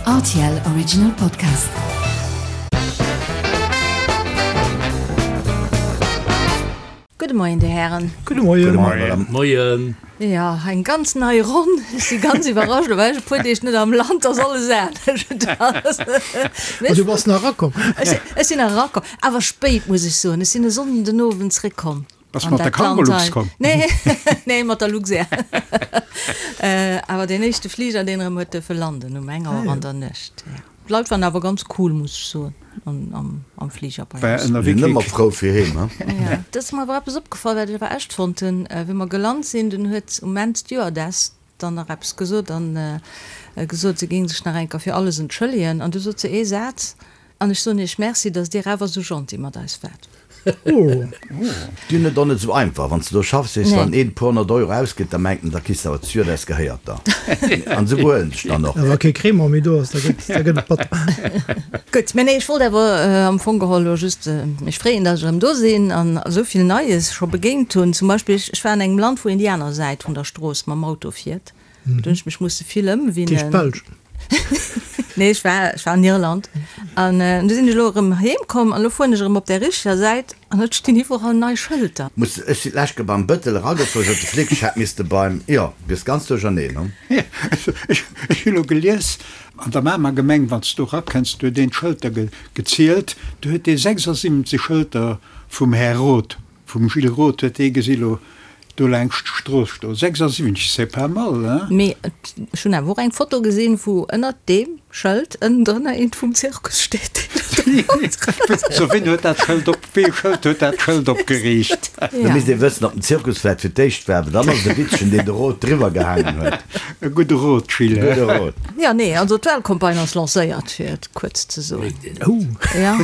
Rtl Original Podcast. Gudde Moien, Dir Hären. Gudde Moien. Gudde Moien, Madame. Moien. Jo, eng ganz nei Ronn. Ech si ganz iwwerrascht, lo war ech e puer Deeg net am Land, ass alles anescht. Ma du bass nach erakomm. Ech sinn nach erakomm, awer spéit, muss ech soen. Ech sinn e Sonnden den Owend zréckkomm. Bass mat der Cargolux komm? Nee, nee, mat der Luxair. Awer deen éischte Fliger, deen erëm huet duerfe landen um eng Auer an der Nuecht. Jo. D'Leit waren awer ganz cool, muss ech soen, am Fliger bei eis. Sinn ëmmer frou fir heem, he? Jo. Et ass mer awer eppes opgefall, wat ech awer echt fonnt hunn. Wéi mer gelant sinn, dunn huet um Enn d'Stewardess dann nach eppes gesot an gesot, se géing sech nach eng Kéier fir alles entschëllegen. An du sot se ee Saz, An ech soen Iech Merci, datt Dir awer esou gentil mat eis waart. Déi hunn et och net esou einfach. Wann s de do schaffs, weess de, wann een e puer honnert Euro ausgëtt, da mengt en, da kriss de awer d'Stewardess gehéiert der. An esou behuelen sech dann och. A wa kee Crémant méi do ass, da gëtt et batter. Gutt, mä nee, ech wollt awer am Fong geholl elo just mech freeën, datt ech erëm do sinn an esou vill Neies scho begéint hunn. Zum Beispill, ech war an engem Land, wou een déi aner Säit vun der Strooss mam Auto fiert. Do hunn ech mech musse vill ëmwinnen. D'heescht d'Belsch? Nee, ech war, ech war an Irland. An du sinn ech elo erëm heem komm an elo fueren ech erëm op där richteger Säit an et stinn iwwerall nei Schëlter. Muss, ech sinn d'lescht Kéier beim Bëttel eragefuer, sot de Flic, ech hätt misste beim, jo, du biss ganz duercherneen, hu? Ech hu lo gelies, an der Mamer Gemeng, wann s du erakënns, do huet een d'Schëlter gezielt, do huet dee 76 Schëlter vum Här Roth Vum Gilles Roth huet ee gesi lo do laangscht d'Strooss stoen. 76, c'est pas mal, hein? Mee ech hunn awer och eng Foto gesinn, wou ënnert deem Schëld ënnendrënner eent vum Zirkus steet, deen do ronderëm. So, ween huet dat Schëld op, wee Schëld huet dat Schëld opgeriicht? Da misst ee wëssen, ob den Zirkus vläit fir d'éischt war, well dann ass et e Witzchen, deen de Roth driwwer gehaangen huet. E gudde Rot, Gilles. E gudde Rot. Jo, nee, also d'Wahlcampagne ass lancéiert, fir et kuerz ze soen. Oh. Ja.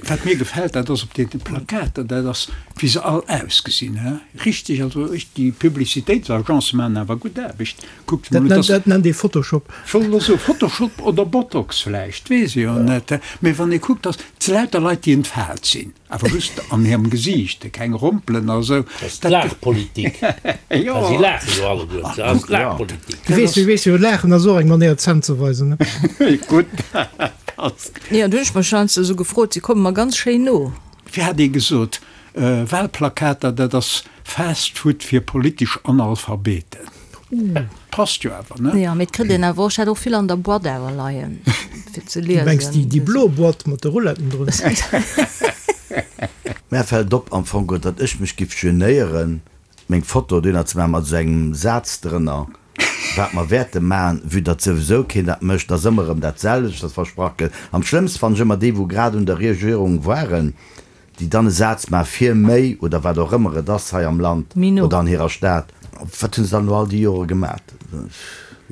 Wat mir gefält, dat ass op deene Plakater, dat ass, wéi se all ausgesinn, he? Richteg, also ech, déi Publicitéitsagence maachen awer gutt Aarbecht. Kuckt emol, dat ass. Dat nennt ee Photoshop. Ech wollt elo soen, Photoshop oder Botox vläicht, weess ech jo net, he? Mee wann ee kuckt, dass et lauter Leit, déi entfaalt sinn. Awer just an hirem Gesiicht, keng Rompelen a sou. Dat ass d'Laachpolitik. Jo. Well si laache jo alleguer. Dat ass d'Laachpolitik. Du weess, du weess jo, Laachen ass och eng Manéier d'Zänn ze weisen, ne? Gutt, dat ass. Jo, du hunn ech mech heiansdo esou gefrot, si komme mer ganz schéin no. Wéi hat ee gesot, Wahlplakater, dat ass Fast Food fir politesch Analphabeten. Passt jo awer, ne? Jo, mee et kritt een awer och, ech hat och vill an der Boîte awer leien, fir ze liesen. Du mengs déi, déi blo Boîte mat de Rouletten drun? Mär fällt op am Fong, datt ech mech giff genéieren, meng Foto dohinner ze maachen mat esou engem Saz drënner, wat mer wäerte maachen, vue datt souwisou keen dat mécht, ass ëmmer erëm dat selwecht, wat versprach gëtt. Am schlëmmste fannen ech ëmmer déi, wou grad un der Regierung waren, déi dann e Saz maache fir méi oder wat och ëmmer et ass hei am Land oder an hirer Stad. Wat hu se dann elo all déi Jore gemat?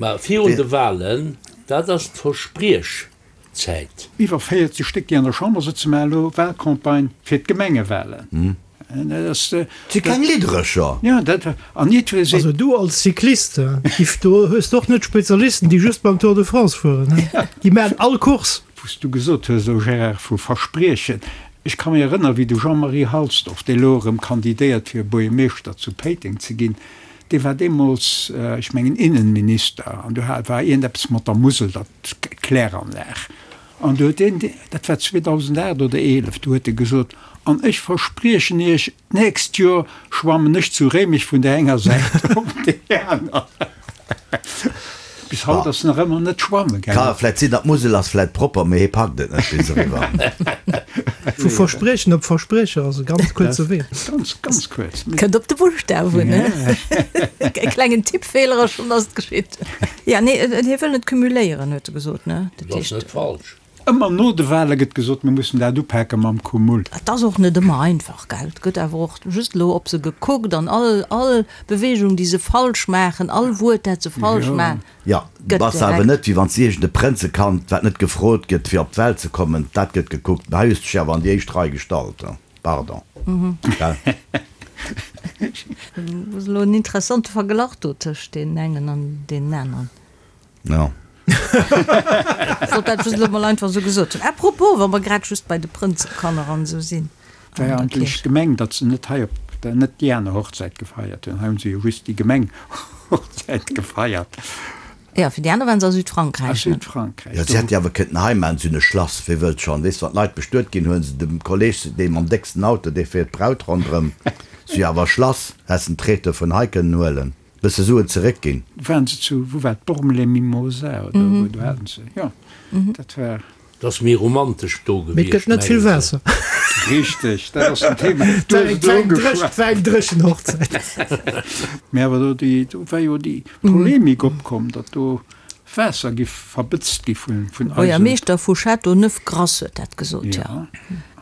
Mä virun de Wahlen, dat ass d'Verspriechzäit. Iwwer 40 Stéck, déi an der Chamber sëtzen, maachen elo Wahlcampagne fir d'Gemengewahlen. Dat ass. Si keng Lidderecher. Jo, dat, an jiddweree seet. Also du als Cyclist, giff do, hues de och net Spezialisten, déi just beim Tour de France fueren, he? Déi maachen all Course. Wou s du gesot hues elo, Gérard, vu Verspriechen, ech ka mech erënneren, wéi de Jean-Marie Halsdorf, dee elo erëm kandidéiert fir Buergermeeschter zu Péiteng ze ginn, dee war deemools, ech mengen, Innenminister, an do war iergendeppes mat der Musel, dat Kläranlag, an do huet deen, dat war 2008 oder 11, do huet e gesot, an ech verspriechen Iech, D'nächst Joer schwammen ech zu Réimech vun der enger Säit op déi aner. Bis haut ass nach ëmmer net schwamme gaangen. Ka vläit sinn, datt d'Musel ass vläit propper, mee hie packt et net bis eriwwer. Vu Verspriechen op Verspriecher ass e ganz kuerze Wee. Ganz, ganz kuerz. Kënnt op de Buschtaf un, ne? E klengen Tippfeeler a schonn ass et geschitt. Ja, nee, hie wëll net cumuléieren, huet e gesot, ne? Dat ass net falsch. Ëmmer no de Wale gëtt gesot, mir mussen dat upake mam Cumul. Et ass och net ëmmer einfach, gell. Et gëtt awer och just elo op se gekuckt an all, all Bewegung, déi se falsch maachen, all Wuert, dat se falsch maachen, Jo, gëtt bass awer direkt. net, wéi wann s iergend e Prënzekand, wat net gefrot gëtt, fir op d'Welt ze kommen, dat gëtt gekuckt. Mä hei hues de dech awer an déi éischt Rei gestallt, pardon, gell. Ass elo en interessante Verglach do tëscht deenen engen an deenen aneren. Jo. Wollt dat just elo mol einfach esou gesot hunn. À propos, wa mer grad just bei de Prënzekanner an esou sinn. War jo eigentlech gemeng, datt se net hei op der, net déi aner Hochzäit gefeiert hunn. Hei hunn se jo just déi Gemenghochzäit gefeiert. Jo, fir déi aner waren se a Südfrankräich, A ne? Südfrankräich, Jo, do. si hätt jo awer kënnten hei maachen, si hunn e Schlass, wee wëllt schonn, weess, wann d'Leit bestuet ginn, huelen se dem Kolleg, dee mam décksten Auto, dee fiert d'Braut ronderëm, si hu jo awer e Schlass, häss den Traiteur vun hei kënnen huelen, bësse Suen zeréckginn. Waren se zu, wou war et, Bormes-les-Mimosas oder wou, do haten se, jo, dat war. Et ass méi romantesch do Mee et gewiescht, gëtt net vill mengen se. Waasser. Richteg, dat ass den Thema. Et war eng, war eng dréch, et war eng dréchen Hochzäit. Mee awer do déi, do war jo déi Polemik opkomm, datt do Waasser giff verbëtzt gi vun, vun eisen. Buergermeeschter vu Châteauneuf-Grasse huet dat gesot, jo.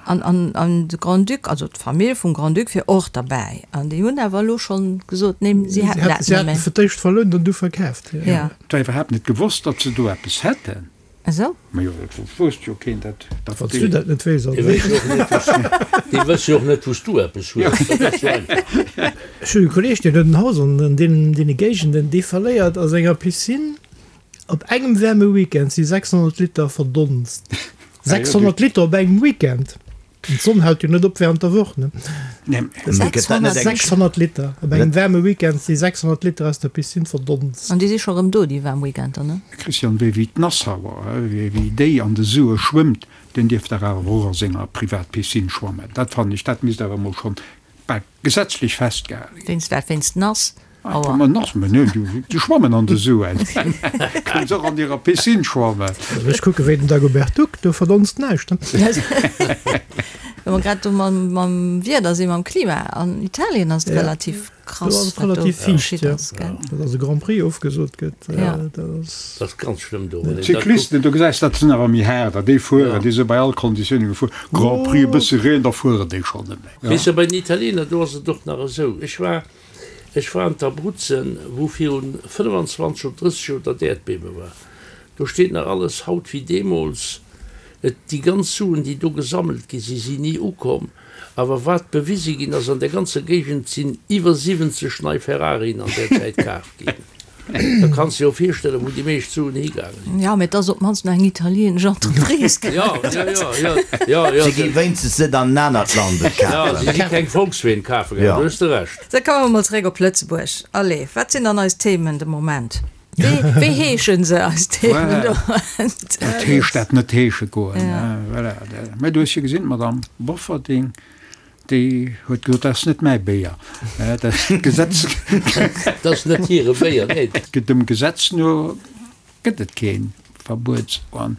An, an, an de Grand-Duc, also d'Famill vum Grand-Duc wier och derbäi. An déi hunn awer elo schonn gesot, nee, si hätten dat Si net méi. haten fir d'éischt verlount an du verkaaft, jo. Ja. Et war iwwerhaapt net gewosst, datt se do eppes hätten. Esou? Majo, dat wousst jo keen, dat, dat Wann s du dat net weess, Déi wësse jo och net, wou s du, déi wësse jo och net, wou s du eppes hues. Dat ass jo einfach. Ech hunn e Kolleeg, deen huet en Haus an deenen, deene Géigenden, dee verléiert a senger Piscine op engem waarme Weekend si 600 Liter verdonst. 600 Liter op engem Weekend! D'Sonn hält jo net op während der Woch, ne? Nee. 600 Liter op engem waarme Weekend si 600 Liter aus der Piscine verdonst. An déi si scho rëm do, déi waarm Weekender, ne? Christian, wéi wéi d'Nassauer, wéi wéi déi an de Sue schwëmmt, deen dierf dach awer och a senger Privatpiscine schwammen. Dat fannen ech, dat misst awer emol schonn bal gesetzlech festgehale ginn. Wéinst wat? Wéinst nass? Aua. Ma nass, ma nö, déi schwammen an de Suen. Kënnen se och an hirer Piscine schwammen. Ech kucke wéi den Dagobert Duck, do verdonst näischt. Wa mer grad do mam Wieder sinn, mam Klima, an Italien ass et relativ krass, wat do geschitt ass, gell? Datt e Grand Prix ofgesot gëtt, dat ass. Dat ass ganz schlëmm do. D'Cyclisten, do gesäis dat sinn awer méi haarder, déi fueren, déi si bei all Konditioune gefuer. Grand Prix, e bësse Reen, da fueren déi schonn net méi. Weess de, bei den Italiener, do ass et och nach esou, ech war Ech war an d'Abruzzen, wou virun 25 oder 30 Joer dat Äerdbiewe war. Do steet nach alles haut wéi deemools. Et, déi ganz Suen, déi do gesammelt gi sinn, sinn ni ukomm. Awer wat bewise ginn ass, an där ganzer Géigend sinn iwwer 70 nei Ferrarien an där Zäit kaf ginn. Da kanns de jo virstellen, wou déi meescht Suen higaange sinn. Jo, mee et ass op d'mannst nach eng italienesch Entreprise. Jo, jo, jo, jo, jo, jo. Si gi wéinstens net an en anert Land et Jo, kafen. si si keng Volksween kafe gaangen, do hues de Recht. Da komme mer mol zeréck op Lëtzebuerg. Allez, wat sinn dann eis Themen de Moment? Wéi, wéi heeschen se, eis Themen de Moment? Dat heescht dat net heesche goen. Voilà. Mä du hues jo gesinn, d'Madame Bofferding, Déi huet gesot, dat ass net mäi Béier. Dat Gesetz. Dat ass net hire Béier, nee. Dem Gesetz no gëtt et kee Verbuet. An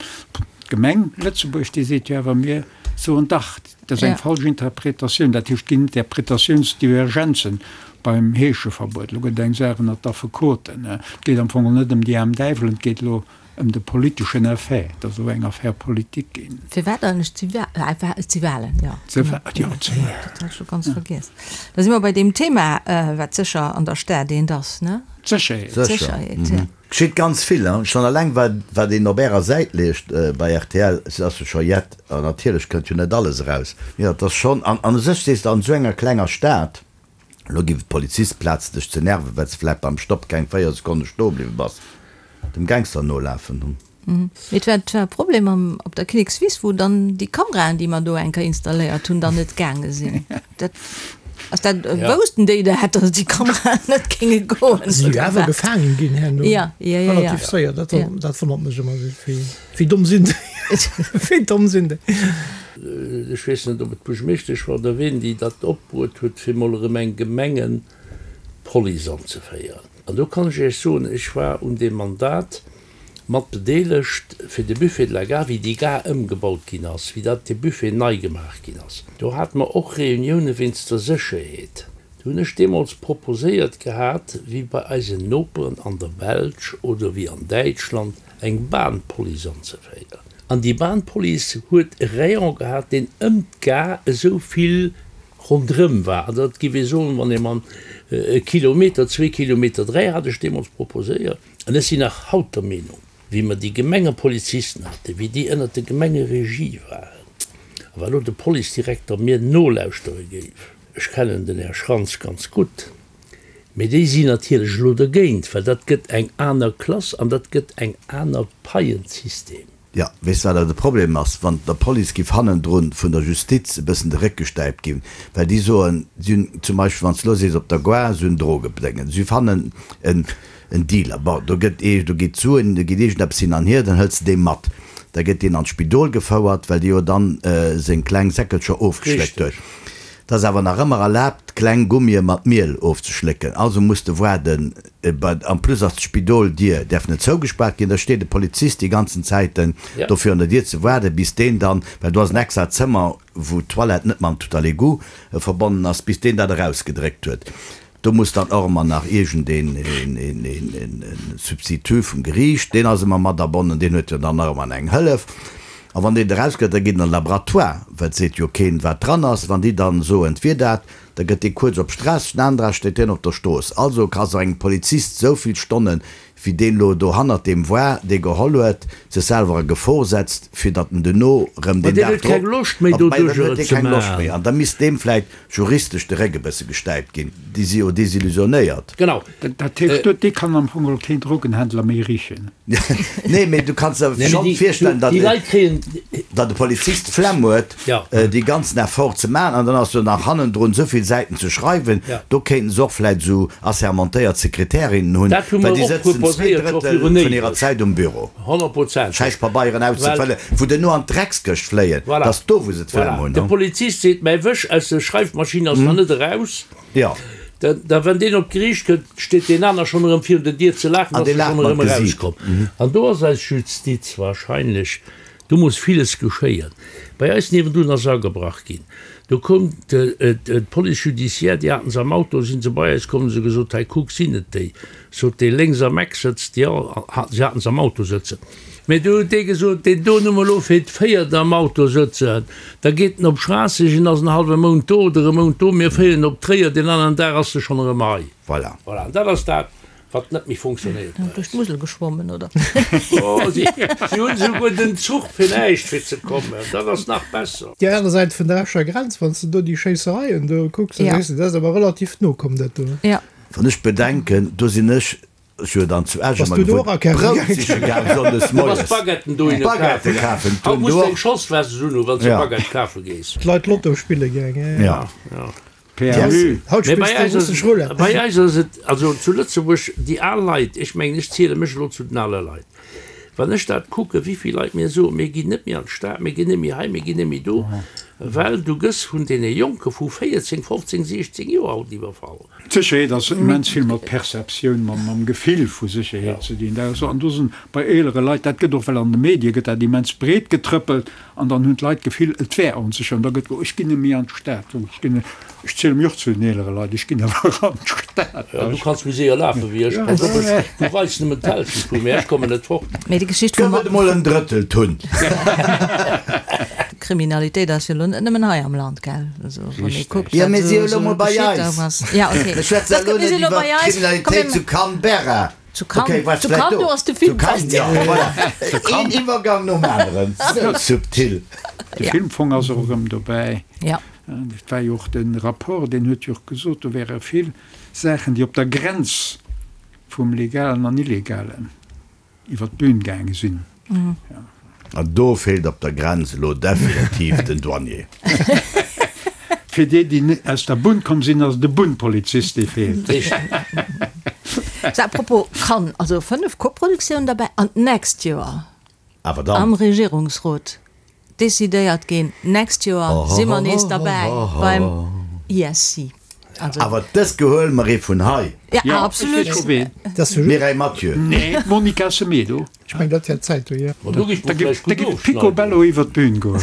d'Gemeng Lëtzebuerg, déi seet jo awer, mir soen dach, dat ass eng falsch Interpretatioun. Dat heescht, et ginn Interpretatiounsdivergenzen beim Heescheverbuet. Elo gëtt et eng Saach ënnert d'Affekoten. Et geet am Fong net ëm déi aarm Däiwelen, et geet elo Ëm de politeschen Effet, et ass elo eng Affaire politique ginn. Firwat eigentlech et si Wahlen, jo. Jo, et si Wahlen. Dat hat ech scho ganz vergiess. Da si mer bei deem Thema, wat sécher an der Stad eent ass, ne? D'Sécherheet. D'Sécherheet, jo. Geschitt ganz vill, hein. Schonn alleng wat wat een op ärer Säit liest bei rtl, et ass jo scho jett, an natierlech kënnt jo net alles eraus. Jo, et ass schonn, an an u sech sees de, an esou enger klenger Stad, Elo giff et Polizist plaz dech ze nerven well s de vläit beim Stopp keng 4 Sekonne stoe bliwwe bass, dem Gangster nolafen hunn. Mee et war et war e Problem am op der Kinnekswiss wou dann déi Kameraen déi mer do eng Kéier installéiert hunn dann net gaange sinn. Dat ass dat woussten déi dat datt déi Kameraen net géinge goen Si jo oder awer wat? gefaangen ginn herno Ja, ja, ja, ja. relativ séier. Dat dat wonnert mech ëmmer esou, wéi wéi domm sinn déi? Wéi domm sinn déi? Ech weess net, ob et d'Buergermeeschtesch war oder ween, déi dat opbruet huet, fir mol erëm eng Gemengepolice anzeféieren. An do kann ech Iech soen, ech war un deem Mandat mat bedeelegt fir de Buffet de la Gare, wéi déi Gare ëmgebaut ginn ass, wéi dat dee Buffet nei gemaach ginn ass. Do hate mer och Reunioune wéinst der Sécherheet. Do hunn ech deemools proposéiert gehat, wéi bei eisen Noperen an der Belsch oder wéi an Däitschland, eng Bahnpolice anzeféieren. An déi Bahnpolice huet e Rayon gehat, deen ëm d'Gare esou vill ronderëm war. Also dat géif ee soen, wann ee man e Kilometer, zwee Kilometer, dräi hat ech deemools proposéiert. An ech sinn nach haut der Meenung, wéi mer déi Gemengepolizisten haten, wéi déi ënnert der Gemengeregie waren, a wa lo de Policedirekter mir nolauschtere géif, ech kennen den Här Schrantz ganz gutt, Mee déi sinn natierlech elo dergéint, well dat gëtt eng aner Klass an dat gëtt eng aner Paiensystem. Jo, weess wat awer de Problem ass, wann der Police giff hannendrun vun der Justiz e bëssen de Réck gestäipt ginn, well déi soen, si hunn zum Beispill, wann s de elo sees op der Gare, si hunn Drogebedéngen, si fannen en. En Dealer, bon, do gëtt ee, do geet d'Suen, do geet iergendeppes hin an hier, dann hëls de dee mat. Da gëtt deen an d'Spidol gefouert, well dee jo dann seng kleng Säckelcher ofgeschléckt huet. Et ass awer nach ëmmer erlaabt, kleng Gummie mat Miel ofzeschlécken. Also muss de waarden, en plus ass d'Spidoldier däerf net zougespaart ginn, da steet e Polizist déi ganzen Zäiten do virun der Dier ze waarden, bis deen dann, well do ass en extra Zëmmer, wou d'Toilette net mam Tout-à-l'égout verbonnen ass, bis deen dat erausgedréckt huet. Do muss dann och ëmmer nach iergendeen een Substitut vum Geriicht, deen ass ëmmer mat abonnen, deen huet jo dann nach ëmmer eng Hëllef. A wann deen erausgëtt, da geet en an de Laboratoire, well et seet jo keen, wat dran ass. Wann déi dann soen, et wier dat, da gëtt dee kuerz op Stress, den anere steet deen op der Strooss. Also ka se engem Polizist esou vill Stonnen, wéi deen elo do hannert deem war, dee geholl huet, sech selwer a Gefor setzt, fir datt en duerno rëm deen Dag huet keng drop, Loscht méi, mä dann doduerjer huet et dee ze keng Loscht méi. maachen. An da misst deem vläicht juristesch de Réck e bësse gestäipt ginn. Déi si jo desillusionéiert. Genau. Dat heescht, dee kann am Fong geholl keen Drogenhändler méi richen. Nee, mee du kanns der Nee, mee schonn déi, virstellen, datt déi Leit kréien. datt e Polizist d'Flemm huet, Ja. dee ganzen Effort ze maachen an dann ass do nach hannendrun esou vill Säiten ze schreiwen. Ja. Do kéinten se och vläicht esou assermentéiert Sekretärinnen hunn, Dat hu well mer déi och sëtzen zwee proposéiert scho Drëttel virun vun hirer éiweg. Zäit um Büro. Honnertprozenteg. Schäiss Pabeieren Well. auszefëllen, wou duerno an d'Dreckskëscht fléien. Voilà. Dat ass do, wou se d'Flemm Voilà. hunn. De Polizist seet, Mäi Wësch aus der Schreifmaschinn ass nach net eraus. Jo. Da, da wann deen op d'Geriicht kënnt, steet deen aner schonn erëm virun der Dier ze laachen, An dass dee e laacht schonn mat erëm Gesiit. erauskomm. An do ass eis Justiz wahrscheinlech, do muss villes geschéien. Bei eis niewendun ass agebrach ginn. Do koum d'Police judiciaire, déi haten se am Auto, si se bei eis komm, hu se gesot, hei kuck, sinn et déi? Sot dee lénks am Eck sëtzt, jo, si haten se am Auto sëtzen. Mee du huet dee gesot, deen do hu mer elo fir d'véiert am Auto sëtzen, da geet en op Schraasseg en ass en hallwe Mount do oder e Mount do, mir féieren en op Tréier, deen aneren Dag ass e schonn erëm hei. Voilà. Voilà, an dat ass dat, wat net méi funktionéiert bei Duerch eis. d'Musel geschwommen, oder? Oh, si hunn esouguer den Zuch fir näischt fir ze kommen, dat ass nach besser. Déi aner Säit vun der Escher Grenz, wann s de do déi Schéissereien do kucks, da Ja. sees de, dat ass awer relativ no komm, dat do. Ja. Wann ech bedenken, do sinn ech Ech hu dann zu Esch Bass ëmmer du do gewunnt, och akafe Brout gaangen? siche gaang sonndes Du bass moies. Baguetten dohinne Baguette kafen. kafen, Haut d'hunn muss do de eng och. Schosswest un hu wann s de Ja. Baguette kafe gees. D'Leit Lotto spille gaang, ja, Ja. Ja. PMU. Haut Mee bei spills de eis ass russesch Roulette. bei eis ass et, also zu Lëtzebuerg, déi al Leit, ech mengen, ech ziele mech elo zu den ale Leit, wann ech dat kucken, wéi vill Leit mir soen, mir ginn net méi an d'Stad, mir ginn net méi hei, mir ginn net méi do, well du gëss vun deene Jonke vu 14, 15, 16 Joer haut iwwerfall. D'Sécherheet ass immens vill mat Perceptioun, mam Gefill vu Sécherheet ze dinn. Dat ass, an do sinn bei eelere Leit, dat gëtt och, well an de Medie gëtt dat immens breet getrëppelt, an dann hunn d'Leit d'Gefill, et wär onsécher, an da gëtt, oh ech ginn net méi an d'Stad, oh ech ginn net, ech ziele mech och zu den eelere Leit, ech ginn awer an d'Stad. Jo, du kanns méi séier lafe wéi ech, pass op, ech, du weis nëmmen d'Hälschent vu mir, ech kommen net fort. Mee déi Geschicht vum. Gëff et emol en Drëtteltunn. Kriminalitéit ass jo elo net nëmmen hei am Land, gell? Also, wann ee kuckt, Jo, wat mir si jo esou elo mol bei geschitt eis. ass. Ja, okay. Ech schwätze Dat elo mir net si elo iwwer bei eis. Komm, d'Kriminalitéit mir zu Canberra. Zu Cannes, Okay, war zu vläicht Cannes, do. do ass de Zu Film Cannes, ja, voilà. Een Iwwergang nom aneren. Sou subtil. De Ja. Filmfong ass och erëm dobäi. Ja. Et war jo och de Rapport, deen huet jo och gesot, do wäre vill Saachen, déi op der Grenz vum Legalen an Illegalen iwwer d'Bühn gaange sinn. An do feelt op der Grenz elo definitiv den Douanier. Fir déi, déi net aus der Bunn komm sinn, ass et e Bunnpolizist, dee feelt. Sou, à propos Cannes, also 5 Koproduktiounen derbäi an d'nächst Joer Awer dann. am Regierungsrot decidéiert ginn, d'nächst Joer si mer nees derbäi beim ISC. Also. Awer dës gehuele mer ee vun hei. Ja, absolut. Mireille Mathieu. Nee, d'Monica Semedo. Ech mengen, dat wär d'Zäit do, jo. Da géif Picobello iwwer d'Bühn goen.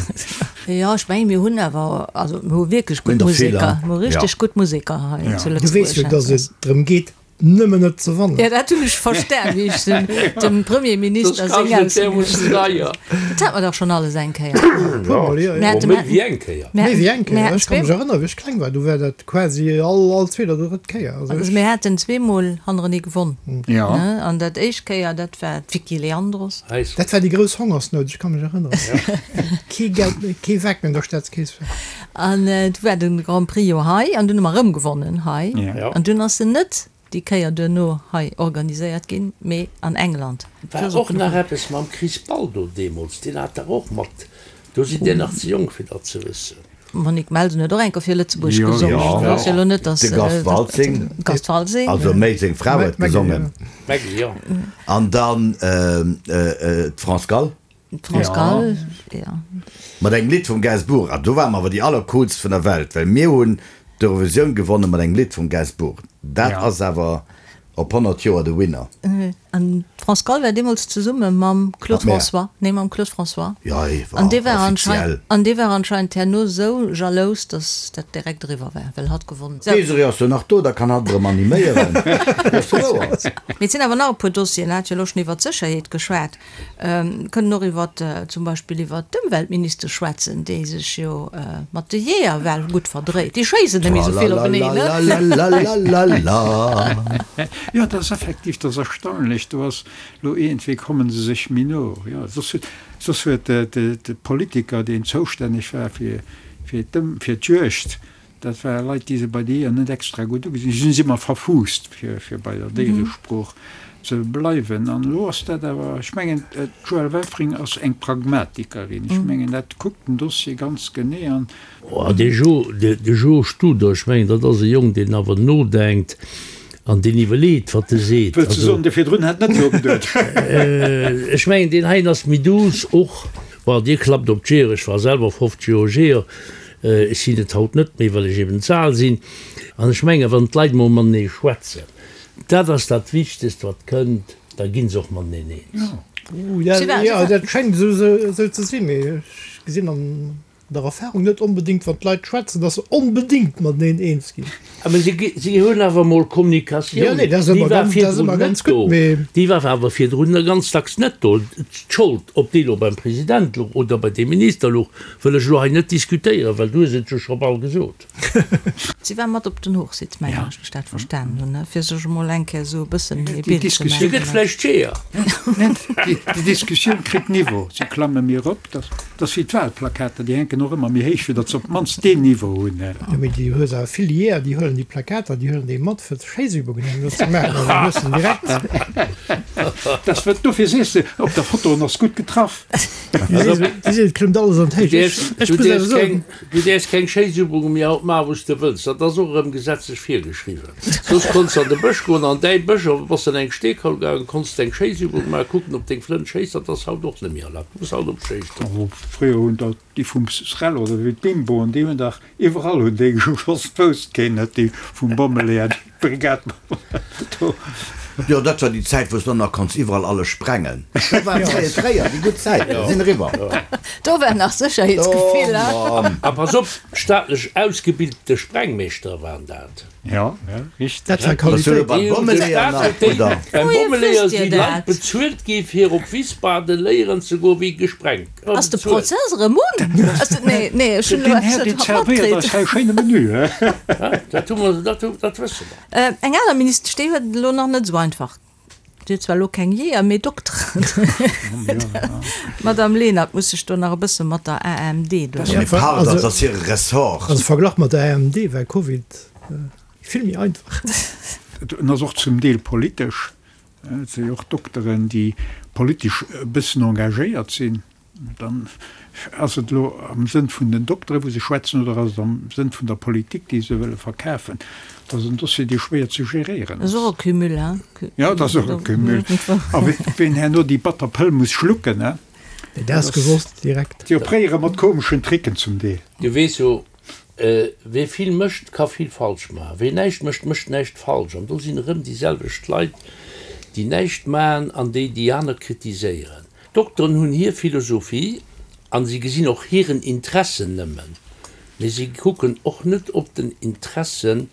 Jo, ech mengen, mir hunn awer, also mir hu wierklech gutt Museker, mir hu richteg gutt Museker hei zu Lëtzebuerg. Du weess jo, datt et drëm geet, Nëmmen net ze wannen. Ja, dat hunn ech verstan, wéi ech dem Premierminister seng Aussoen. Dat hat mer dach schonn alles eng Kéier. Puermol, jo, jo. Méi wéi eng Kéier. Méi wéi eng Kéier. Ech ka mech erënneren, wéi ech kleng war, do war dat quasi all, all zweet oder drëtt Kéier. Also mir haten zweemol hannerenee gewonn. Jo. An dat éischt Kéier, dat war d'Vicky Leandros. Dat war déi grouss Hongersnout, ech ka mech erënneren. Kee Geld méi, kee Weck méi an der Staatskeess war. An du war den Grand Prix jo hei an dunn hu mer erëm gewonnen hei. An dunn ass en net déi Kéier duerno hei organiséiert ginn, mee an England. War och nach eppes mam Chris Baldo deemools, deen hat dach och mat, do sidd Dir nach ze jonk fir dat ze wëssen. D'Monique Melsen huet och eng Kéier fir Lëtzebuerg gesongen. Jo, Dat ass jo elo net, datt. De Gast Waltzing. Gast Waltzing. Also méi seng Fra huet gesongen. D'Maggy, jo. An dann d'France Gall. D'France Gall, jo. Mat engem Lidd vum Gainsbourg. An do ware mer awer déi allercoolst vun der Welt, well mir hunn d'Eurovisioun gewonne mat engem Lidd vum Gainsbourg. Dat ass awer op 100 Joer de Winner. An d'France Gall war deemools zesumme mam Claude François, nee mam Claude François. Jo, hie war An dee war offiziell. anscheinend, an dee war anscheinend herno esou jalous, datt dat direkt eriwwer war, well hatt gewonnen. Sou. D'Désirée ass jo nach do, da kann hatt erëm animéieren. Dat ass wouer. Mee et sinn awer nach e puer Dossieren. Hat jo elo schonn iwwert d'Sécherheet geschwat. Mir kënnen och iwwer zum Beispill iwwer d'Ëmweltministesch schwätzen, déi sech jo mat de Jeeër well gutt verdréit. Déi schéissen net méi esou vill openeen, ne? Tralalalalalalalala. Jo, dat ass effektiv, dat ass erstaunlech. Do ass elo iergendwéi komme se sech méi no. Jo, soss huet, soss huet de Politiker, deen zoustänneg war fir, fir d'Ëm, fir d'Juegd, Dat ware Leit, déi se bei de Jeeër net extra gutt ugesinn hunn. Si sinn ëmmer verfuusst, fir bei der Déieresprooch ze bleiwen. An elo ass dat awer, ech mengen, d'Joëlle Welfring ass eng Pragmatikerin. Ech mengen, dat kuckt den Dossier ganz genee an. Oh, dee Jo, de Jo Studer, ech mengen, dat ass e Jong, deen awer nodenkt an deen iwwerleet, wat e seet. Wëlls de soen, dee virdrun hätt net nogeduet? Ech mengen, deen heien ass méi douce och. Bon, Dir klappt op d'Jeeër, ech war selwer 50 Joer Jeeër. Ech sinn et haut net méi, well ech eben ze al sinn. An ech mengen, wann d'Leit mol matenee schwätzen, dat ass dat Wichtegst, wat kënnt, da gi se och mateneen eens. Jo, dat schéngt esou ze sinn, mee ech gesinn an der Erfahrung net onbedéngt, wann d'Leit schwätzen, datt se onbedéngt mateneen eens ginn. Mä si hunn awer emol Kommunikatioun, déi war virdrun net do, déi war awer virdrun ganz dacks net do. D'Schold, ob déi elo beim President louch oder bei deem Minister louch, wëll ech elo hei net diskutéieren, well du hues et jo scho bal gesot. Si war mat op den Hochsitz, mengen ech, wéi ech dat verstanen hunn, fir sech emol eng Kéier esou e bëssen ee Bild ze Si gëtt maachen. vläicht Jeeër. Déi Diskussioun kritt Niveau, si klamme méi erop. Dat ass wéi d'Wahlplakater, déi hänken och ëmmer méi héich, fir datt se op d'mannst deen Niveau hunn. Jo, mee du hues awer vill Jeeër, déi huelen déi Plakater, déi huelen déi mat, fir Schéissübungen herno ze maachen, an dann hues de en direkt. Dat ass, dofir sees de, op der Foto, en ass gutt getraff. Et klëmmt alles an d'Héicht. Ech Du muss awer däerfs soen. keng, du däerfs keng Schéissübunge méi haut maachen, wou s de wëlls. Dat ass och erëm gesetzlech virgeschriwwen. Soss konns de an de Bësch goen, an däi Bësch, a bass an eng Steekaul gaangen, konns de eng Schéissübung maachen, kucken, ob deng Flënt schéisst. Dat ass haut och net méi erlaabt. Du muss haut op d'Schéisst. Oh, fréier hunn der déi vum SREL oder wéi d'Bimboen, déi hunn dach iwwerall hunn déi geschoss, d'wousst keen net, déi vum Bommeleeër, déi Brigade do. Jo, dat war déi Zäit, wou s de och nach konns iwwerall alles sprengen. Dat war fréier, fréier, déi gutt Zäiten sinn eriwwer. Do war nach Sécherheetsgefill, Oh hein? Mann. A pass op, staatlech ausgebiltete Sprengmeeschtere waren dat. Jo, jo, richteg. Dat war Bass du elo Qualitéit. beim Déi hunn de Bommeleeër Staat nach, huet déi, oder? beim Wouhier Bommeleeër wësst Dir si Leit dat? bezuelt gi fir op Wiesbaden léieren ze goen, wéi gesprengt gëtt. Ass de Prozess erëm un? Ass de, nee, nee, ech hunn elo Deen Här, eppes deen net zerwéiert eis matkritt. hei e schéine Menü, he? Dat hu mer, dat hu, dat wësse mer. Eng aner Ministesch, déi huet et elo nach net esou einfach. Déi huet zwar elo keng Jeeër, mee Dokteren. D'Madame Lenert muss sech do nach e bësse mat der AMD do. Mee pardon, dat ass hire Ressort. Also verglach mat der AMD war Covid vill méi einfach. En ass och zum Deel politesch. Et si jo och Dokteren, déi politesch e bëssen engagéiert sinn. Dann ass et elo am Sënn vun den Dokteren, wou se schwätzen, oder ass et am Sënn vun der Politik, déi se wëlle verkafen? Dat ass en Dossier, dee schwéier ze geréieren ass. Dat ass och e Cumul, hein? Jo, dat ass och e Cumul. A ween herno déi batter Pëll muss schlucken, hein? Dat ass gewosst direkt. Déi opréiere mat komeschen Tricken zum Deel. Du weess jo, Wee vill mécht, ka vill falsch maachen. Wee näischt mécht, mécht näischt falsch. An do sinn erëm déi selwecht Leit, déi näischt maachen an déi déi aner kritiséieren. D'Dokteren hunn hir Philosophie a si gesinn och hiren Interessen nëmmen, mee si kucken och net op den Interesse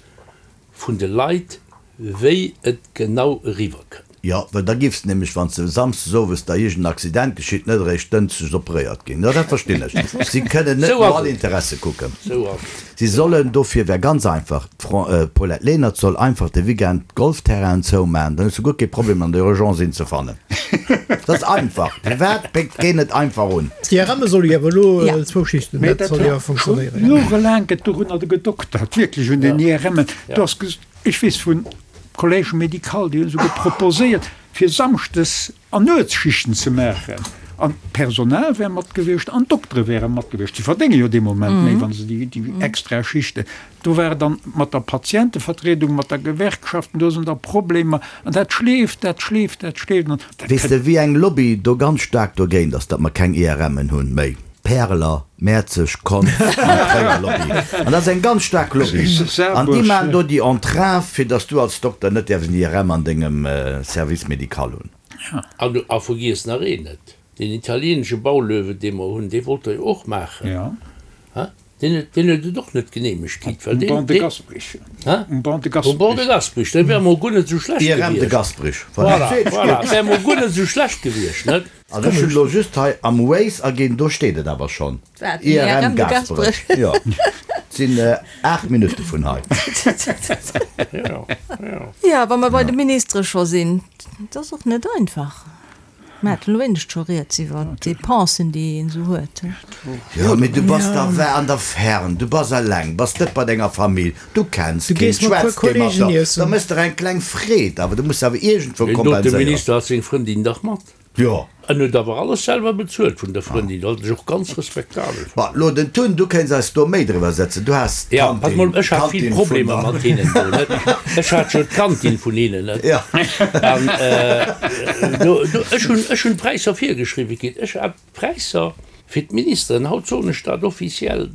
vun de Leit, wéi et genau eriwwer kënnt. Jo, well da giffs de nämlech, wann s de samsdes owes da iergend en Accident geschitt, net eréischt dënschdes operéiert ginn. Jo, dat verstinn ech. Si kënnen net Sou no ass all et. Interesse kucken. Sou ass et. Si sollen, dofir wär ganz einfach, d'Paulette Lenert soll einfach de Weekend d'Golfterrainen zoumaachen, dann hues du guer kee Problem an der Urgence een ze fannen. Dat ass einfach. Firwat péckt keen et einfach un? D'IRMe solle jo awer elo zwou Schichten, Mee dat dat soll jo war scho funktionéieren. jorelaang gëtt dorunner gedoktert, wierklech un den IRMen. Do ass Ech weess vun Collège médical, déi hunn esouguer proposéiert, fir samschdes an Nuetsschichten ze maachen. An d'Personal wär mat gewiescht an d'Doktere wäre mat gewiescht. Si verdénge jo dee Moment méi, wa se déi extra Schichten. Do war et dann mat der Patientevertriedung, mat der Gewerkschaften, do sinn da Problemer an dat schleeft, dat schleeft, dat schleeft an dat Weess de wéi eng Lobby do ganz staark dogéint ass, datt mer keng IRMen hunn méi? D'Päreler, Mäerzeg, Konz an d'Tréier Lobby. An dat ass eng ganz staark Lobby. An déi maachen do déi Entrave, fir datt s du als Dokter net däerfs en IRM an dengem Service médical hunn. An a vergiess nach een net, deen italienesche Baulöwe, dee mer hunn, dee wollt Der jo och maachen. Deen huet, deen huet et och net geneemegt kritt, well deen, Um Banc de Gasperich. Hä? Um Banc de Gasperich. Um Banc de Gasperich, dat wär emol guer net esou schlecht gewiescht. IRM de Gasperich, voilà. Voilà, voilà, wär emol guer net esou schlecht gewiescht, net? Also ech hunn elo just hei am Waze aginn, do steet et awer schonn. Wat? IRM Gasperech. Jo. Et sinn 8 Minutte vun hei. Jo, jo. Jo, wa mer bei de Ministere scho sinn, et ass och net einfach. Mir haten elo éinescht scho rieds iwwer d'Depensen, déi een esou huet. Jo, mee du bass da an der Fern, du bass eleng, bass net bei denger Famill, du kenns keen, schwätz kee mat der, da méchs der eng kleng Freed, awer du muss awer iergendwou kompenséieren. Deen dote Minister hat seng Frëndin dach mat. Jo. En huet awer alles selwer bezuelt vun der Frëndin, wat ech och ganz respektabel Ma fannen. lo den Tun, du kéints eis do méi driwwer setzen, du has Ja, pass mol, ech hat vill Problemer mat hinnen do, net? Ech hat jo d'Kantin vun hinnen, net? Ja. An do, do, ech hunn, ech hunn d'Präisser virgeschriwwe kritt. Ech hat d'Präisser fir d'Ministeren, haut soen ech dat offiziell,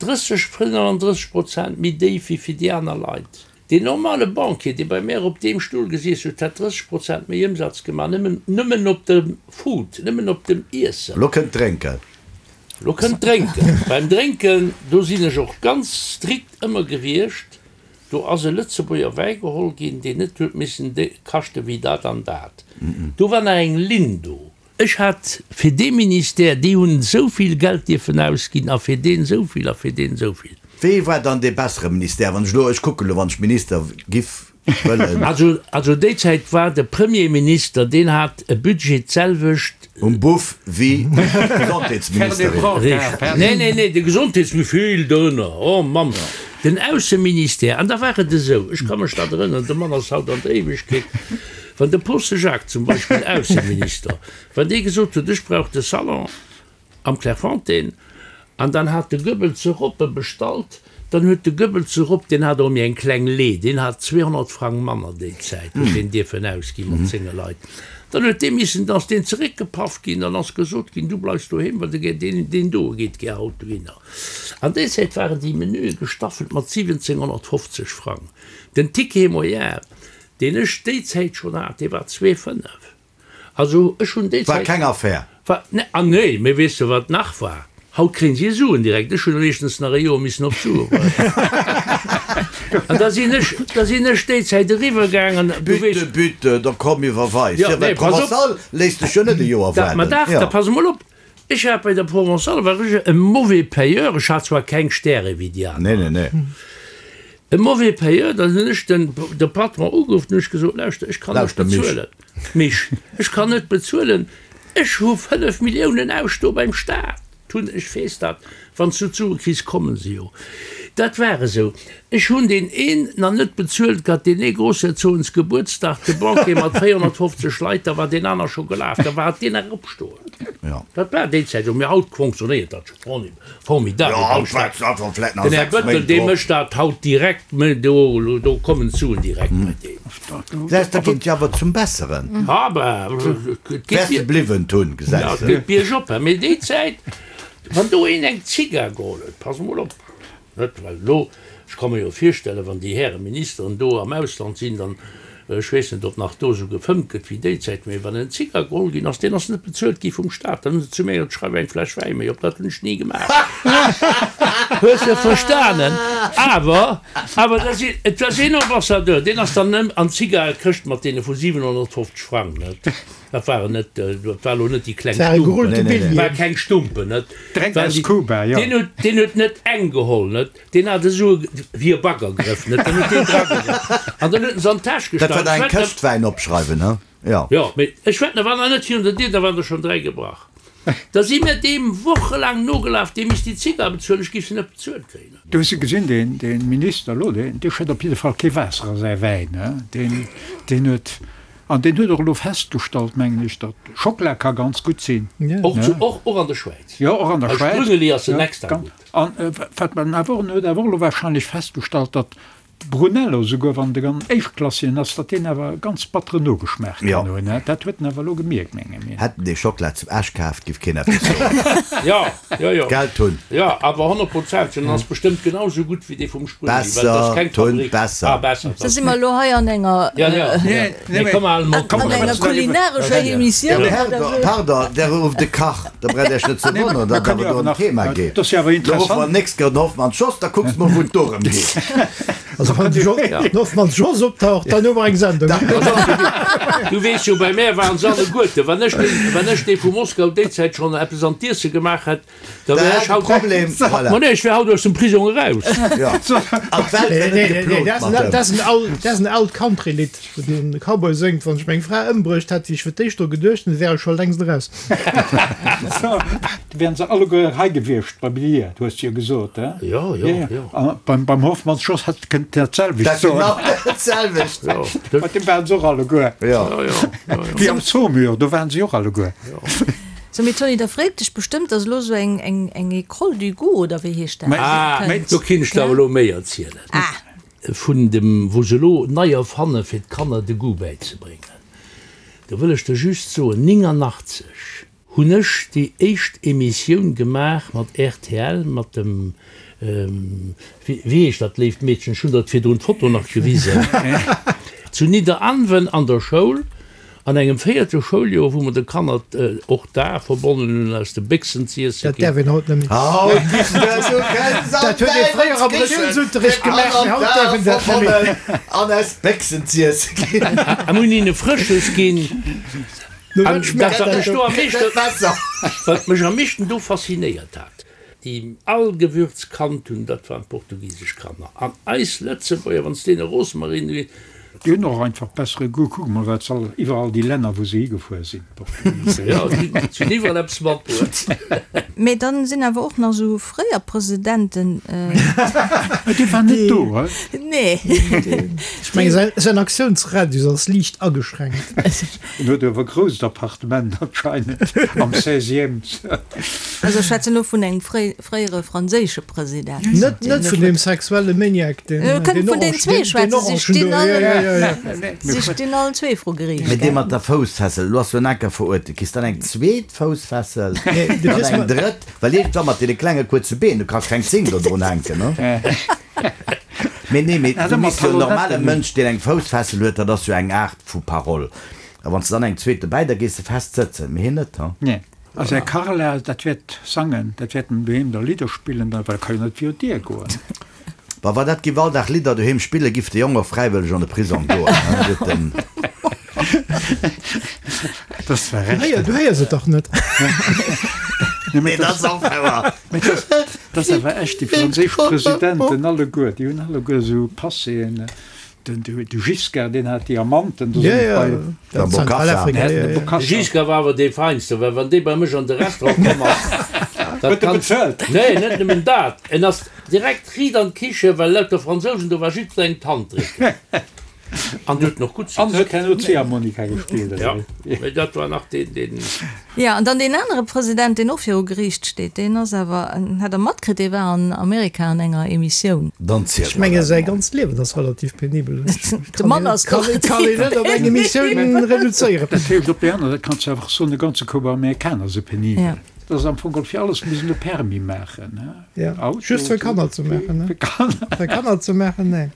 30, 35 Prozent méi déif wéi fir déi aner Leit. Deen normale Banquier, dee bei mär op deem Stull gesiess huet, hätt 30 Prozent méi Ëmsatz gemaach, nëmmen, nëmmen op dem Food, nëmmen op dem Iessen. Lo kënnt d'Drénken. Lo kënnt d'Drénken. Beim Drénken, do sinn ech och ganz strikt ëmmer gewiescht. Do ass e Lëtzebuerger Wäi geholl ginn, deen net huet missen kaschte wéi dat an dat. Do war nach eng Linn do. Ech hat fir dee Ministère, déi hunn esou vill Geld dierfen ausginn a fir deen esou vill a fir deen esou vill. Wee war dann dee bessere Ministère, wann ech elo, ech kucken elo, wann ech Minister giff wëllen? Also, also déi Zäit war de Premierminister, deen hat e Budget d'selwecht. Um Buff wéi d'Gesondheetsministerin. Richteg. Nee, nee, nee, de Gesondheetsmi-, vill dorënner, oh Mamm. Den Ausseministère, an da war et esou, ech ka mech dat erënneren, de Mann ass haut an der Éiwegkeet, Wann de Posse Jacques zum Beispill, Ausseminister, wann dee gesot huet, ech brauch de Salon am Clairefontaine, an dann hat de Goebbels e Roppe bestallt, dann huet de Goebbels e Ropp, deen hat och méi eng kleng Lee, deen hat 200 Frang manner déi Zäit, huet deen dierfen ausgi mat senge Leit, dann huet dee missen, dann ass deen zeréckgepaff ginn, dann ass gesot ginn, du bleifs doheem, well de deen, deen do geet gär haut dohinner. An déi Zäit waren déi Menüe gestaffelt mat 1750 Frang. Den Ticket moyen, Deen ech déi Zäit schonn hat, dee war 2,5. Also ech hunn déi War Zäit. keng Affär. War, ne, ah nee, mee weess de wat nach war? Haut kréien si Suen direkt. Ech hunn meeschtens nach e Joer missen op d'Sue waarden. An da sinn ech, da sinn ech déi Zäit eriwwer gaangen, du weess. Bitte, bitte, da komm iwwerweis. Jo, Jo, well nee, pass op. d'Provençale léisst dech jo net e Joer Da, ma waarden. dach, Jo. da pass emol op. Ech hat bei der Provençale war ech e mauvais payeur, ech hat zwar keng Stäre wéi déi aner. Nee, nee, nee. E mauvais payeur, dann hunn ech den de Patron ugeruff, dann hunn ech gesot, lauschter, ech kann net Lauschter, Mich. bezuelen. Mich, ech kann net bezuelen, ech hu 5 Milliounen ausstoe beim Staat. Hunn, ech weess dat, wann s du d'Sue kriss, kommen se jo. Dat war esou. Ech hunn deen een nach net bezuelt gehat, deen ee Grossherzogens Gebuertsdag, de Banquet mat 450 Leit, da war deen aner scho gelaf, da war et deen nach opstoen. Dat war déi Zäit esou. Mee haut fonctionnéiert dat scho formidabel beim Staat. Den Här Bettel, dee mécht dat haut direkt, do do kommen d'Suen direkt bei deem. Gesäis, dat geet jo awer zum Besseren. Ah ben, et geet Wäers de bliwwen, Tun, gesäis de. Et geet biergop, mee déi Zäit, wann do een eng Zigar geholl huet, pass emol op, net, well elo, ech ka mer jo virstellen, wann déi Häre Ministeren do am Ausland sinn, dann, ech weess net, ob nach do esou gefëmmt gëtt wéi déi Zäit, mee wann en Zigar geholl ginn ass, deen ass net bezuelt gi vum Staat, dann hunn se zu mir gesot, schreif eng Fläsch Wäi méi op. Dat hunn ech ni gemaach. Hues de verstanen? Awer, awer da sinn, et war een Ambassadeur, deen ass dann an d'Zigarekëscht mat deene vu 750 Frang, net? Dat waren net, dat war elo net déi kleng Stumpen, war keng Stumpen, net? Direkt aus Kuba, jo. Deen huet, deen huet net eng geholl, net? Deen hat esou wéi e Baggergrëff, net? Dann huet deen dragegraff an dann huet en se an d'Täsch Dat gestach. war da eng Këscht Wäin opschreiwen, he? Jo. Jo, mee ech wetten, da war nach net virun der Dier, da waren der schonn 3 gebrach. Da si mir deem wochelaang nogelaf, dee misst déi Zigar bezuelen, ech géif se net bezuelt kréien. Du hues se gesinn, deen, dee Minister elo, deen, dee schëtt op jidde Fall kee Waasser a säi Wäin, he? Deen, deen huet. An deen huet och elo festgestallt, mengen ech, datt Schockela ka ganz gutt sinn. Och zu, och, och an der Schwäiz. Jo, och an der Bei Schwäiz. Sprüngeli ass en extra gutt. An wat man awer och, en huet awer och elo wahrscheinlech festgestallt, datt Brunello, souguer wann de ganz éischtklassigen ass, datt deen awer e ganz batteren Nogeschmaach kann hunn. Dat huet en awer elo gemierkt, menge mir. Hätt en dee Schockela zum Esch kaaft, giff keen eppes soen. Jo, jo, jo. Geld hunn. Jo, awer 100%, en ass bestëmmt genau sou gutt wéi dee vum Sprüngli, well et ass Besser, keng Tun, Fabrik. besser. Ah, besser. Da si mer elo hei an enger, Ja, ja, ja. Mee komm al mol, komm an enger kulinarescher Emissioun oder Pardon, sou. pardon, der rufft de Kach, da braucht Iech net ze wonneren, datt awer do en Thema geet. Dat ass jo awer Da ruffe mer interessant. nächst Kéier den Hoffmann Jos, da kucks mol, wou et dorëm geet. Also wann de Hoffmann Jos optaucht, dann hu mer eng Sendung. Du weess jo, bei mär waren se alleguerte. Wann ech dee, wann ech dee vu Moskau déi Zäit schonn eppes an d'Iesse gemaach hätt, Da wär ech haut. Problem, voilà. Ma nee, ech wär haut aus dem Prisong eraus. Ja. An d'Welt wär net geplot mat dem. Dat ass en aalt Country-Lidd, wou de Cowboy séngt, Wann ech meng Fra ëmbruecht hätt, wéi ech fir d'éischt dru geduecht hunn, wär ech scho längst eraus. Da wären se alleguer hei gewiescht bei mir, du hues jo gesot, he? Jo, jo, jo. A beim, beim Hoffmanns Jos hätt kënnt dat selwecht Dat soen. genau dat selwecht. Jo. Bei deem waren se och alleguer. Jo. Jo, jo, jo, jo. Wéi am Saumur, do waren se och alleguer. So, mee Tony, da freet dech bestëmmt, dass elo sou eng, eng, eng École du goût, oder wéi heescht dat? Ah, kënnt, do kinn ech der awer gell? elo méi erzielen. Ah! Vun dem, wou se elo nei erfanne fir d'Kanner de Goût bäizebréngen. Do wëll ech der just soen, 89 hunn ech déi éischt Emissioun gemaach mat rtl, mat dem, wéi heescht dat léift Meedchen, ech hunn der et virdrun d'Foto nach gewisen, zu Nidderaanwen an der Schoul. An engem véierte Schouljoer, wou mer de Kanner och d'Ae verbonnen hunn, aus de Béchsen z'iesse Dat däerf ginn. een haut net méi. Haut giss de du kënns an Dat huet ee fréier am Reliounsunterricht gemaach, mee haut däerf een dat net méi. An aus Béchsen z'iesse ginn. A mir hunn hinne Frësches ginn. No An wat schmaacht dat, wat dat mech do do? am meeschten, wat mech am meeschten do faszinéiert hat, déi all Gewürz kannt hunn, dat waren d'portugisesch Kanner. An eis Lëtzebuerger, wann s deene Rosmarin ginn. Déi hunn och einfach bessere Goût. Kuck mol, wat se all, iwwerall déi Länner, wou se higefuer sinn, d'Portugisen. Jo, si hunn iwwerall eppes matbruet. Mee dann sinn awer och nach esou fréier Presidenten. Mä dee war net do, he? Nee. Ech menge säin Aktiounsradius ass liicht ageschränkt. En huet awer e grousst Appartement anscheinend am seizième. Also ech schwätzen elo vun engem fréiere franséische President. Net net vun deem sexuelle Maniac, deen Mir kënnen vun deen den zwee Orange, deen schwätzen, si Orangen stinn do, all, jo, jo, jo, jo. si stinn allen zwee vru Geriicht, Mee dee gell? mat der Foussfessel, elo ass jo en Anker verurteelt, kriss dann eng zweet Foussfessel, Nee, du dann kriss eng ma. drëtt, well iergendwann mat deene klenge kuerze Been, du kanns keng Zing do drun hänken, ne? Mee nee, mee du misst jo en normale Mënsch, deen eng Foussfessel huet, dat ass jo eng Aart vu Parole. A wann s de dann eng zweet dobäi, da gees de fest sëtzen, mee hien net, ha? Nee. A säi Carla, dat wäert sangen, dat wäert en doheem da Lidder spillen, da, well e ka jo net virun d'Dier goen. Wa wa dat giff all Dag Lidder doheem spillen, giff de Jong och fräiwëlleg an de Prisong goen, ha? Huet den. Dat ass zwar Du recht. héier, du héiers et dach net. Nee, dat ass och wouer. Mee dat, dat ass awer echt, déi franséisch Presidenten alleguer, déi hunn alleguer esou Passéen. Den de Giscard, deen hat Diamanten, do sinn ech bei. Der Bokassa. De Giscard war awer dee Feinsten, well wann dee bei mech an de Restaurant komm ass, dat Huet e bezuelt? Nee, net nëmmen dat, en ass direkt riit an d'Kiche, well lauter Fransousen do war, jiddwerengem d'Hand drécken. An huet en och gutt An huet herno Ziehharmonika gespillt, oder Ja, wéi? mee dat war nach deen, deen. Jo, an dann deen anere President, deen och viru Geriicht steet, deen ass awer, hat Der matkritt, dee war an Amerika an enger Emissioun. Dann ziel Ech mer menge dat säi mol. ganzt Liewen ass relativ penibel. De Mann ass Kann doch kann een net op eng Emissioun reduzéieren. Dat heescht, op där aner Säit kanns du awer och soen, e ganze Koup Amerikaner si penibel. Ja. Dat ass am Fong geholl fir alles muss een e Permis maachen, he? Ja, Auto, just fir Kanner ze maachen, ne? Fir Kanner. Fir Kanner ze maachen, nee.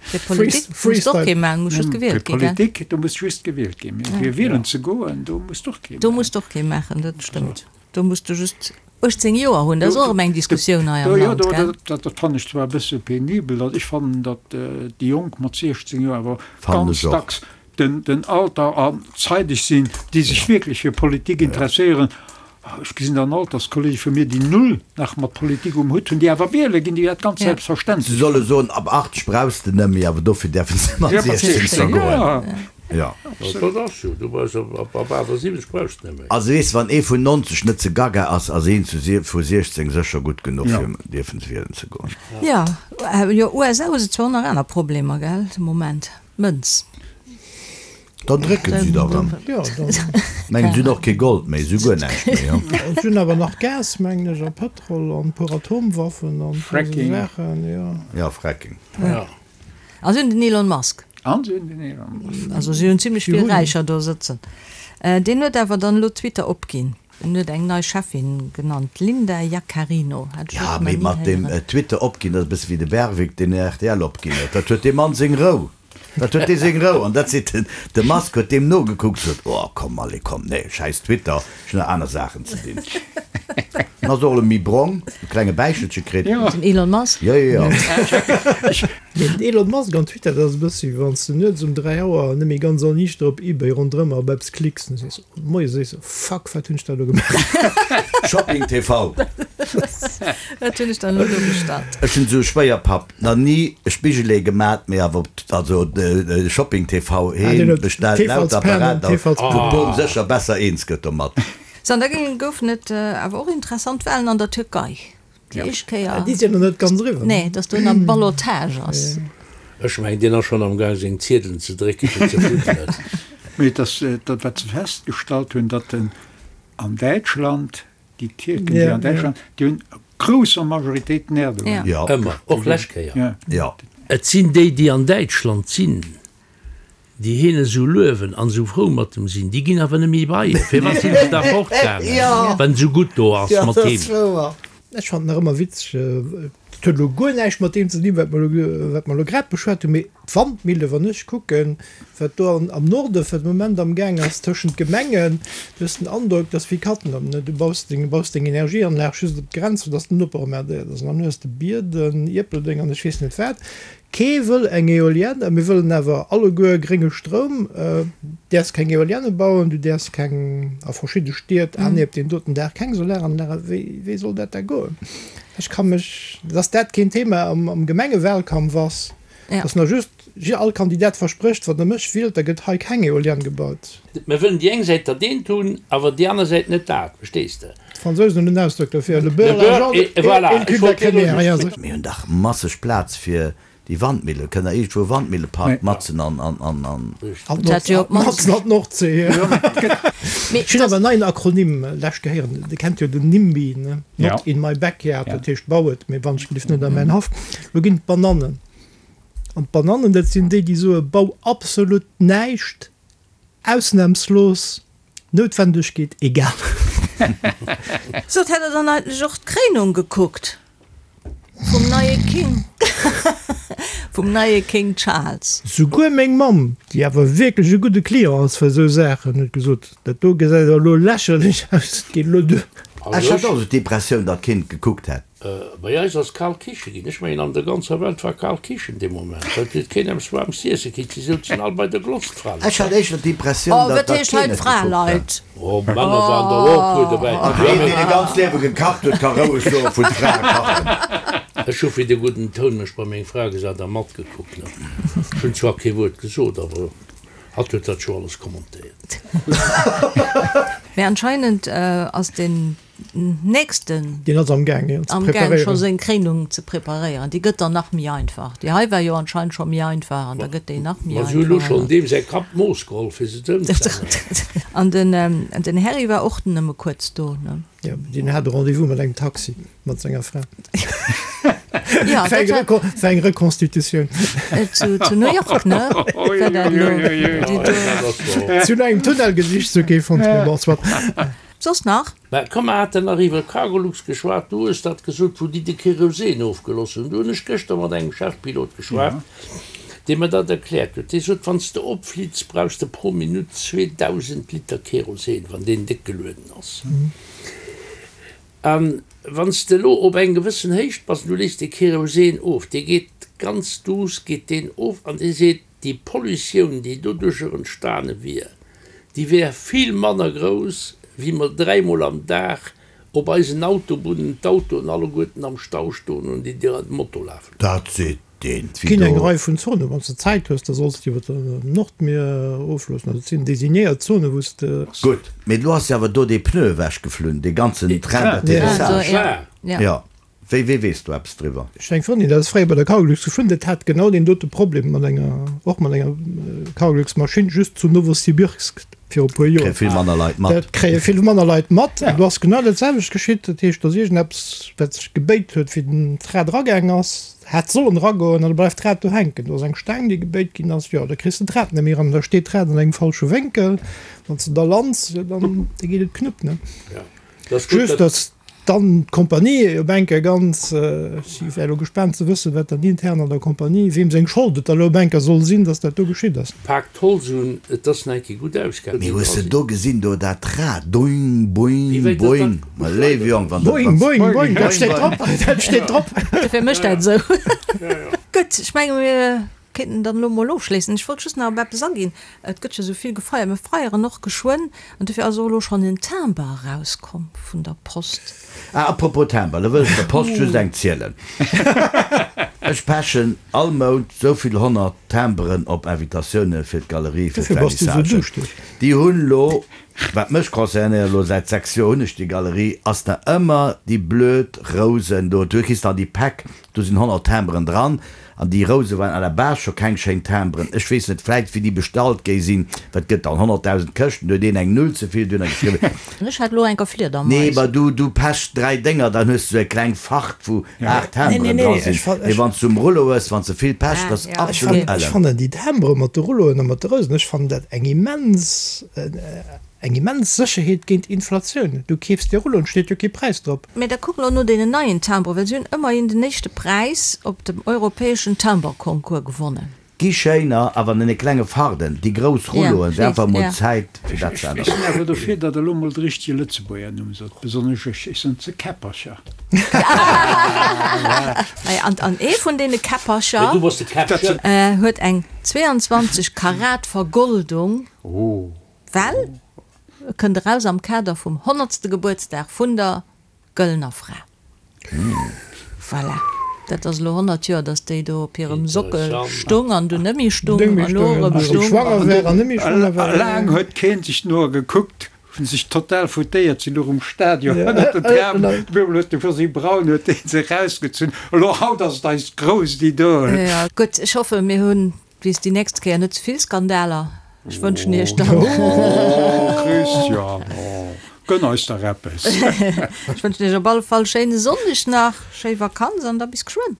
Fir Politik muss och kee maachen, muss just gewielt ginn, gell? Fir Politik, do muss just gewielt ginn. Mee fir wielen ze goen, do muss och kee Do maachen. muss och kee maachen, dat stëmmt. Do muss du just 18 Joer hunn. Dat ass och erëm eng Diskussioun hei am Land, gell? Jo, dat fannen ech zwar e bësse penibel. Ech fannen, datt déi Jonk mat 16 Joer awer Fannen ganz ech och. dacks den Alter an zeideg sinn, déi sech wierklech fir Politik interesséieren. Ech gesinn dann Alterskollege vu mir, déi null nach mat Politik um Hutt hunn, déi awer wiele ginn, déi dat ganz Se selbstverständlech solle soen, ab 80 brauchs de net méi, awer dofir däerfe se mat 16 scho goen. Jo. Dat ass jo, du brauchs ab 78 brauchs de net méi. Also weess, wann ee vun 90 net ze gaga ass, ass een vu 16 sécher gutt genuch fir dierfen wielen ze goen. Jo, jo, USA hu se zwar och nach aner Problemer, gell, de Moment. Mënz. Dann drécken si der erëm. Mengen si hunn och kee Gold méi, si hu guer näischt méi. Jo. Si hunn awer nach Gas, mengen ech, a Pëtrol an e puer Atomwaffen an esou Fracking. Saachen, jo. Ja, Fracking. Ja. A si hunn den Elon Musk. An si hunn den Elon Musk. Also si hunn zimlech vill Räicher do sëtzen. Deen huet awer dann elo Twitter opginn. En huet eng nei Cheffin genannt, d'Linda Yaccarino. Hat ech Ja, och nach mee ni mat deem héieren. Twitter opginn, dat ass e bësse wéi de Berwick, deen rtl opginn huet. Dat huet dee Mann seng Rou. Dat huet dee seng Rou. An dat seet den, de Musk huet deem nogekuckt, sot, Oh, komm, allez, komm, nee, schäiss Twitter, ech hunn nach aner Saachen ze dinn. En ass och elo méi brong, e klenge Bäichelche kritt. Den Elon Musk? Jo, jo, jo. Mee den Elon Musk an Twitter, dat ass e bëssi wéi wann s de nuets um 3 Auer net méi ganz erniichter op Ebay ronderëm a op eppes klicks an du sees, Moies sees de, Fuck, wat hunn ech da elo gemaach? Shopping TV. Wat hunn ech dann elo do bestallt? Ech hunn esou Schwéierpapp nach ni e Spigelee gemat, mee awer op also Shopping TV heen bestellt lauter Apparater, wou d'Bom sécher besser eens gëtt domat. Sou, an da goufen et awer och interessant Walen an der Türkei. Déi éischt Kéier. Déi sinn nach net ganz eriwwer. Nee, datt do nach Ballottage ass. Ech mengen, deen ass schonn am Gaang seng Ziedelen ze drécken, fir ze fuddelen. Mee et ass dat, wat se festgestallt hunn, datt en an Däitschland, déi Tierken, déi an Däitschland, déi hunn a grousser Majoritéit den Erdogan. Jo. Ëmmer, och lescht Kéier. Jo. Et sinn déi, déi an Däitschland sinn, Déi hien esou luewen an esou frou mat em sinn, déi ginn awer net méi bei hien. Firwat sinn se da fortgaangen, wann et esou gutt do ass mat him? Ech fannen nach ëmmer witzeg, dat huet elo guer näischt mat deem ze dinn, wat mer elo, wat mer elo grad beschwat hunn, mee d'Wandmille, wann ech kucken, wat do am Norde fir de Moment am Gaang ass tëschent Gemengen, du hues den Androck, dass wéi Katten am, du baus deng, baus deng Energieanlag just op d'Grenz, fir dass den Noper emmerdéiert ass, an dann hues de Bierden, Ierpeldeng an ech weess net wat. Kee wëll eng Eolienne, mir wëllen awer alleguer grénge Stroum. Däerfs keng Eolienne bauen, du däerfs keng, a verschidde Stied, ah nee, op deem doten Dag keng Solaranlage. Wéi, wéi soll dat da goen? Ech ka mech, dass dat keen Thema am, am Gemengewahlkampf ass, dass nach just all Kandidat versprécht, wann Der mech wielt, da gëtt hei keng Eolienne gebaut. Mir wëllen déi eng Säit dat eent hunn, awer déi aner Säit net dat, verstees de? D'Fransousen hunn en Ausdrock dofir, le beurre, l'argent et le cul de la crémière. Mir hunn dach masseg Plaz fir déi Wandmillen. Kënnt der iergendwou e Wandmillepark matzen an. Matzen an d'Nordsee. Ech hunn awer en neien Akronym lech gehéieren. Dir kennt jo den NIMBY, ne? Not in my backyard, dat heescht bau et, mee wann ech gelift net a mäin Haff. Lo ginn et d'Banannen. An d'Banannen, dat sinn déi, déi soe bau absolut näischt, Ausnahmslos, Noutwendegkeet egal. Sot, hätt der dann eigentlech och d'Kréinung gekuckt vum neie King, vum neie King Charles? Souguer meng Mamm, déi awer wierklech e gudde Client ass fir esou Saachen, huet gesot, Dat do gesäit elo lächerlech aus, et geet elo duer. Ech hat och esou d'Impressioun, datt keen et gekuckt hätt. Bei eis ass kal Kiche ginn. Ech mengen an der ganzer Welt war kal Kichen dee Moment, well et huet keen eppes waarmes z'iesse kritt. Si souzen all bei der Glotz, d'Fraleit. Ech hat éischter d'Impressioun, Oh, datt wat dat heescht hei keen et gekuckt hat. d'Fraleit? Oh, Männer waren der och e puer dobäi. Also een, deen e ganzt Liewe gekacht huet, ka roueg soen, vun d'Frae kachen. Ech hu fir de gudden Toun mech bei meng Fra gesat a matgekuckt. Ech hunn zwar kee Wuert gesot, awer hatt huet dat scho alles kommentéiert. Mee anscheinend ass den nächsten. Deen ass am Gaang, jo, ze Am Gaang scho preparéieren. seng Kréinung ze preparéieren. Déi gëtt dann nach méi einfach. Déi hei war jo anscheinend scho méi einfach an da gëtt déi nach méi Ma si hu lo einfach. schonn deem säi Kapp d'Mooss geholl, fir se z'ëmzänneren. An den, den Harry war och nëmme kuerz do, ne? Jo, deen hat e Rendez-vous mat engem Taxi, mat senger Fra. Ja, Fir eng dat war. Reco fir eng Reconstitutioun. Zu, zu New York, ne? War dat elo? Déi do. Si hunn no engem Tunnel gesicht, sou kee fonnt, mee bon, soit. Soss nach? Mä komm, mer haten nach iwwer Cargolux geschwat, du hues dat gesot, wou déi de Kerosin ofgeloss hunn. Du hunn ech gëschter mat engem Chefpilot geschwat, dee mer dat erkläert huet. Dee sot, Wann s de opflitts, brauchs de pro Minutt 2.000 Liter Kerosin, wann deen déck gelueden ass. A wann s de elo op eng gewëssen Héicht bass an du léiss de Kerosin of, dee geet ganz duuss geet deen of an dee seet, Déi Pollutioun, déi doduercher entstane wier, déi wär vill manner grouss, wéi mer dräimol am Dag op eisen Autobunnen d'Autoen alleguerten am Stau stoen hunn, déi dir an den Moto lafen hunn. Dat seet deen Et ginn eng Wido. Rei vun Zonen, wann s de Zäit hues, da solls de iwwer dem Nordmier ofloossen. Also et sinn designéiert Zonen, wou s de. Gutt, mee elo ass jo awer do dee Pneu ewechgeflunn, dee ganzen Train d'atterrissage. Ja. Jo. Wéi, wee weess do eppes driwwer? Ech eng Frëndin, dat ass fréier bei der Cargolux gefuer, dat hat genau deen dote Problem mat enger, och mat enger Cargolux-Maschinn, just zu Nowosibirsk viru puer Joer. Kréie vill manner Leit mat. Dat kréie vill manner Leit mat. An do ass genau dat selwecht geschitt. Dat heescht, do ass iergendeppes, wat sech gebéit huet, wéi den D'Rad eragaang ass, hätt sollen eragoen, an da bleift d'Rad do hänken. Do ass eng Staang, déi gebéit ginn ass, jo, da kriss de d'Rad net méi eran. Da steet d'Rad an engem falsche Wénkel. Wann s de da lands, jo, dann da geet et knupp, ne? Just, datt dann d'Kompanie op eng Kéier ganz, ech wär elo gespaant ze wëssen, wat dann intern an der Kompanie, weem seng Schold et da elo op eng Kéier soll sinn, datt dat do geschitt ass. Paakt d'Holz un, et ass nach eng Kéier gutt ausgaangen. Mee hues de do gesinn do dat Rad, doing, boing, boing, ma léiwe Jong, wann dat, Boing, boing, boing, dat steet drop, dat steet drop. Dofir mécht dat esou. Gutt, ech menge mir kéinten dann elo mol ofschléissen. Ech wollt just nach op eppes aginn, Et gëtt jo esou vill gefeiert, mir feieren och geschwënn an dofir ass och elo schonn en Timber erauskomm vun der Post. Ah, apropos Timber, lo wëll ech der Post just eng zielen. Ech pechen all Mount sou vill 100 Timberen op Invitatioune fir d'Galerie fir Dofir bass du sou d'Vernissage. duuschtig. Déi hunn lo, wat mech concernéiert, lo säit 6 Joer hunn ech déi Galerie, ass nach ëmmer déi blöd Rousen do. Du kriss dann déi Päck, do sinn 100 Timberen dran. An déi Rouse waren à la base scho keng schéin Timberen. Ech weess net, vläit wéi déi bestallt géi sinn, wat gëtt dann 100.000 Këschten, do huet een eng Null ze vill dunner geschriwwen. Ech hat elo enker Fliedermais. Nee, ma du, du pechs 3 Dénger, dann hues du sou eng kleng Fart wou 8 Timberen dra sinn. Mee wann s du um Rullo hues, wann s de vill pechs, dat ass absolut Ech ellen. fannen déi Timbere mat de Rulloen a mat de Rousen, ech fannen dat eng immens, Eng immens Sécherheet géint Inflatioun. Du keefs dir Rulloen, steet jo kee Präis drop. Mee da kuck elo no deenen neien Timbren, well si hunn ëmmerhin den éischte Präis op dem europäeschen Timberconcours gewonnen. Gi schéiner, awer an deene klenge Farden. Déi grouss Rulloen, et wär einfach mol Zäit fir dat ze Ech änneren. sinn awer dofir, datt der elo mol de richtege Lëtzebuerger Numm sot, besonnesch ech, ech soen ze Käppercher. Naja, an, an ee vun deene Käppercher huet eng 22 Karat Vergoldung. Well e kënnt eraus am Kader vum honnertste Gebuertsdag vun der Gëllener Fra. Voilà, dat ass elo 100 Joer, datt déi do op hirem Sockel stung an dunn net méi stung an elo erëm stung. Laang huet keen sech no gekuckt, hunn sech total foutéiert, sinn elo um Stadion ënnert den Trapen, op eemol huet de Josy Braun huet dee se erausgezunn, elo haut ass et eist grousst Idol. Gutt, ech hoffe mir hunn Bis déi nächst Kéier net ze vill Skandaler. Ech wënschen iech dann. Oh Christian, oh, gönn eis dach eppes. Ech wënschen iech op alle Fall schéine Sonndeg nach, schéi Vakanz an da bis geschwënn.